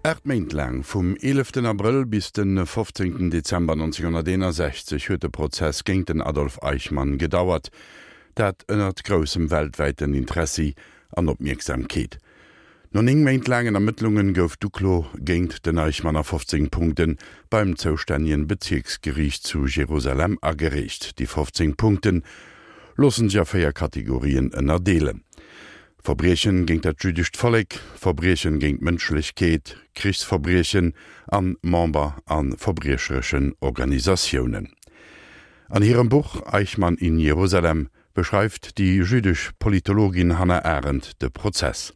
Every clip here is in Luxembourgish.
8 Méint laang, vum 11 Abrëll bis de 15 Dezember 1961, huet de Prozess géint den Adolf Eichmann gedauert, dat ënnert groussem weltwäiten Interessi an Opmierksamkeet. No 9 Méint laangen Ermëttlungen gouf d'Uklo géint den Eichmann a 15 Punkte beim zoustännegen Bezierksgeriicht zu Jerusalem agereecht. Déi 15 Punkte loossen sech a 4 Kategorien ënnerdeelen, Verbriechen géint dat jüddescht Vollek, Verbriechen géint d'Mënschlechkeet, Krichsverbriechen an Member a verbriechereschen Organisatiounen. An hirem Buch Eichmann in Jerusalem beschreift déi jüddesch Politologin Hannah Arendt de Prozess.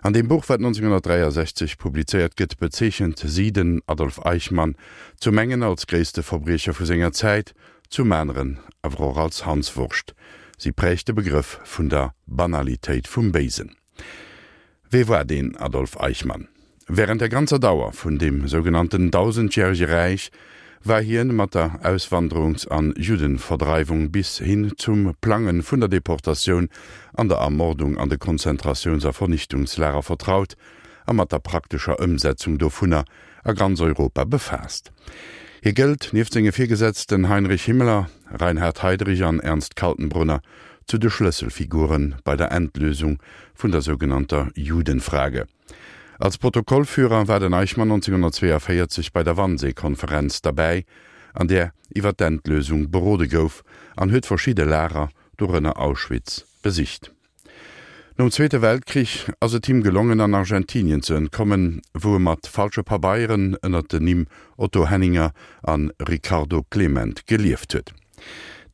An deem Buch, wat 1963 publizéiert gëtt, bezeechent si den Adolf Eichmann zum engen als gréisste Verbriecher vu senger Zäit, zum aneren awer och als Hanswurscht. Si prägt de Begrëff vun der Banalitéit vum Béisen. Wee war deen Adolf Eichmann? Wärend der ganzer Dauer vun deem sougenannten Dausendjärege Räich war hien mat der Auswanderungs an Juddenverdreiwung bis hin zum Plange vun der Deportatioun an der Ermordung an de Konzentratiouns a Vernichtungslager vertraut a mat der praktescher Ëmsetzung dovunner a ganz Europa befaasst. Hie gëllt, nieft senge Virgesetzten Heinrich Himmler, Reinhard Heydrich an Ernst Kaltenbrunner, zu de Schlësselfigure bei der Endlösung vun der sougenannter Judenfrage. Als Protokollführer war den Eichmann 1942 bei der Wannsee-Konferenz derbäi, an där iwwer d'Endlösung berode gouf, an huet verschidde Lager, dorënner Auschwitz, besicht. Nom Zweete Weltkrich ass et him gelongen an Argentinien ze entkommen, wou e mat falsche Pabeieren ënner den Nimm Otto Henninger an Ricardo Clement gelieft huet.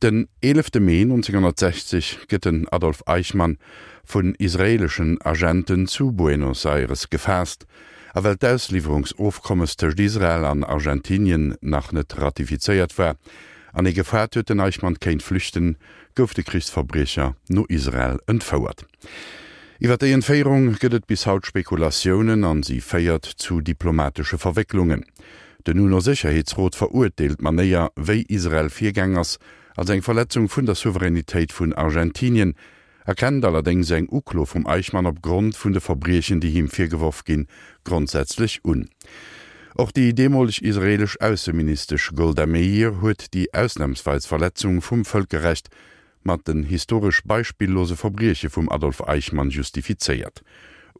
Den 11 Mee 1960 gëtt den Adolf Eichmann vun israeeleschen Agenten zu Buenos Aires gefaasst, a well d'Ausliwwerungsofkommes tëscht Israel an Argentinien nach net ratifizéiert war an ee gefaart huet den Eichmann kéint flüchten, gouf de Krichsverbriecher no Israel entfouert. Iwwer déi Entféierung gëtt et bis haut Spekulatiounen an si féiert zu diplomatesche Verwécklungen. Den UNO-Sécherheetsrot verurteelt d'Manéier, wéi Israel virgaang ass, als eng Verletzung vun der Souveränitéit vun Argentinien, erkennt allerdéngs eng Uklo vum Eichmann op Grond vun de Verbriechen, déi him virgeworf ginn, grondsätzlech un. Och déi deemoleg israeelesch Ausseministesch Golda Meir huet déi ausnamsweis Verletzung vum Vëlkerrecht mat den historesch beispillose Verbrieche vum Adolf Eichmann justifizéiert.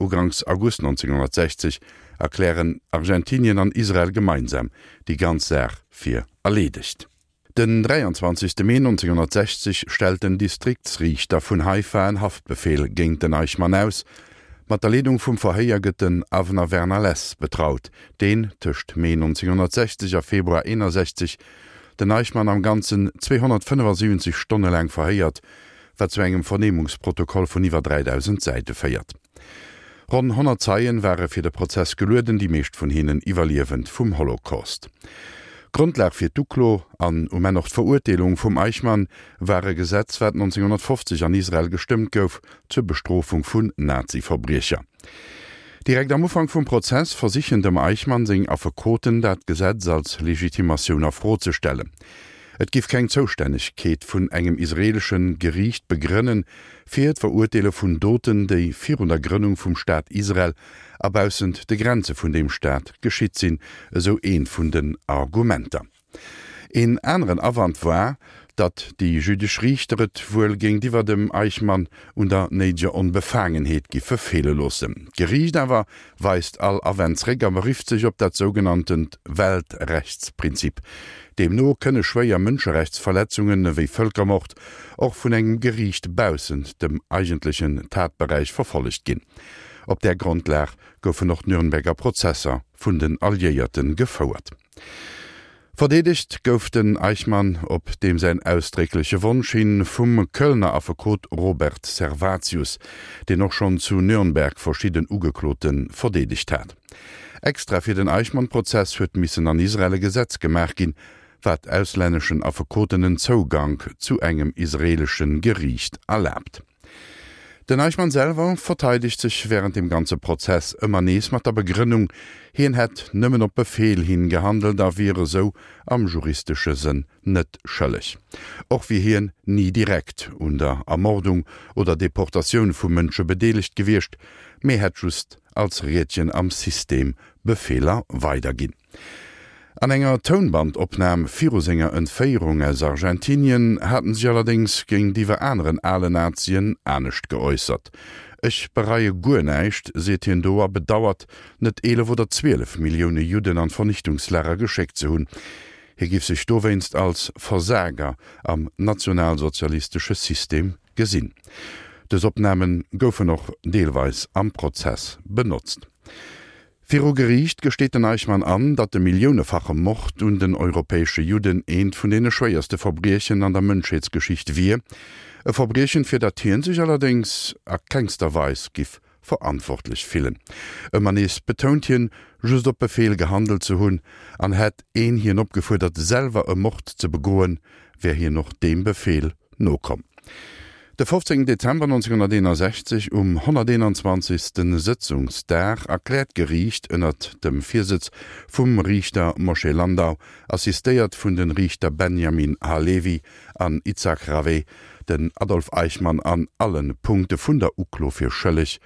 Uganks August 1960 erklären Argentinien an Israel gemeinsam déi ganz Saach fir erleedegt. Den 23. Mee 1960 stellt den Distriktsriichter vun Haifa en Haftbefeel géint den Eichmann aus. Mat der Leedung vum Verhéier gëtt den Avner Werner Less betraut, deen tëscht Mee 1960 a Februar 61 den Eichmann am Ganzen 275 Stonne laang verhéiert, wat zu engem Vernehmungsprotokoll vun iwwer 3.000 Säite féiert. Ronn 100 Zeien ware fir de Prozess gelueden, déi meescht vun hinnen Iwwerliewend vum Holocaust. Grondlag fir d'Uklo an um Enn och d'Verurteelung vum Eichmann war e Gesetz, wat 1950 an Israel gestëmmt gouf zur Bestrofung vun Nazi-Verbriecher. Direkt am Ufank vum Prozess versichen dem Eichmann seng Affekoten, dat Gesetz als Legitimatioun a Fro ze stellen. Et giff keng Zoustännegkeet vun engem israeelesche Geriicht begrënnen, fir d'Verurteele vun Doten, déi virun der Grënnung vum Staat Israel a baussent de Grenze vun deem Staat geschitt sinn, esou eent vun den Argumenter. Een aneren Awand war, datt déi jüddesch Riichter et wuel géintiwwer dem Eichmann un der néideger Onbefaangenheet giffe feele loossen. D'Geriicht awer weist all Awänn zréck a berifft sech op dat sougenanntent Weltrechtsprinzip. Deemno kënne schwéier Mënscherechtsverletzungen, ewéi Vëlkermord, och vun engem Geriicht baussent dem eigentlechen Tatberäich verfollegt ginn. Op där Grondlag goufen och d'Nürnberger Prozesser vun den Alliéierte gefouert. Verdeedegt gouf den Eichmann op deem säin ausdréckleche Wonsch hin vum Kölner Affekot Robert Servatius, deen och schonn zu Nürnberg verschidden Ugeklote verdeedegt hat. Extra fir den Eichmann-Prozess huet missen an Israel e Gesetz gemaach ginn, wat auslänneschen Affekoten en Zougank zu engem israeelesche Geriicht erlaabt. Den Eichmann selwer verteidegt sech wärend dem ganze Prozess ëmmer nees mat der Begrënnung, hien hätt nëmmen op Befeel hin gehandelt a wier esou am juristesche Sënn net schëlleg. Och wier hien ni direkt un der Ermordung oder Deportatioun vu Mënsche bedeelegt gewiescht, mee hätt just als Riedchen am System. Befeeler weiderginn. An enger Tounbandopnam viru senger Entféierung aus Argentinien hat en sech allerdéngs géintiwwer aneren ale Nazien anescht geäussert. Ech bereie guer näischt, seet hien do a bedauert, net 11 oder 12 Millioune Judden an d'Vernichtungslager geschéckt ze hunn. Hie giff sech dowéinst als Versager am nationalsozialistesche System gesinn. Dës Opname goufen och deelweis am Prozess benotzt. Viru Geriicht gesteet den Eichmann an, datt de milliounefache Mord un den europäesche Judden eent vun deene schwéierste Verbriechen an der Mënschheetsgeschicht wier. E Verbriechen, fir dat hien sech allerdéngs a kengster Weis giff verantwortlech fillen. Ëmmer nees betount hien, just op Befeel gehandelt ze hunn, an hätt een hien opgefuerdert, selwer e Mord ze begoen, wär hien och deem Befeel nokomm. De 15 Dezember 1961, um 121. Sëtzungsdag, erkläert d'Geriicht ënnert dem Virsëtz vum Riichter Moshe Landau, assistéiert vun de Riichter Benjamin Halevi an Itzhak Raveh, den Adolf Eichmann an alle Punkte vun der Uklo fir schëlleg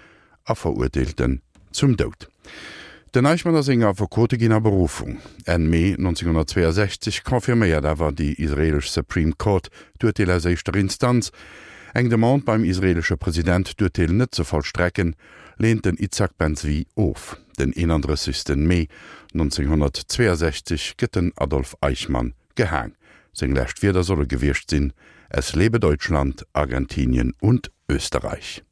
a verurteelt en zum Doud. Den Eichmann a seng Affekote ginn a Berufung. Enn Mee 1962 confirméiert awer déi israeelesch Supreme Court d'Urteel aus éischter Instanz. Eng Demande beim israeelesche President, d'Urteel net ze vollstrecken, leent den Itzhak Ben-Zvi of. Den 31. Mee 1962 gëtt den Adolf Eichmann gehaang. Seng lescht Wierder solle gewiescht sinn, Es lebe Deutschland, Argentinien und Österreich.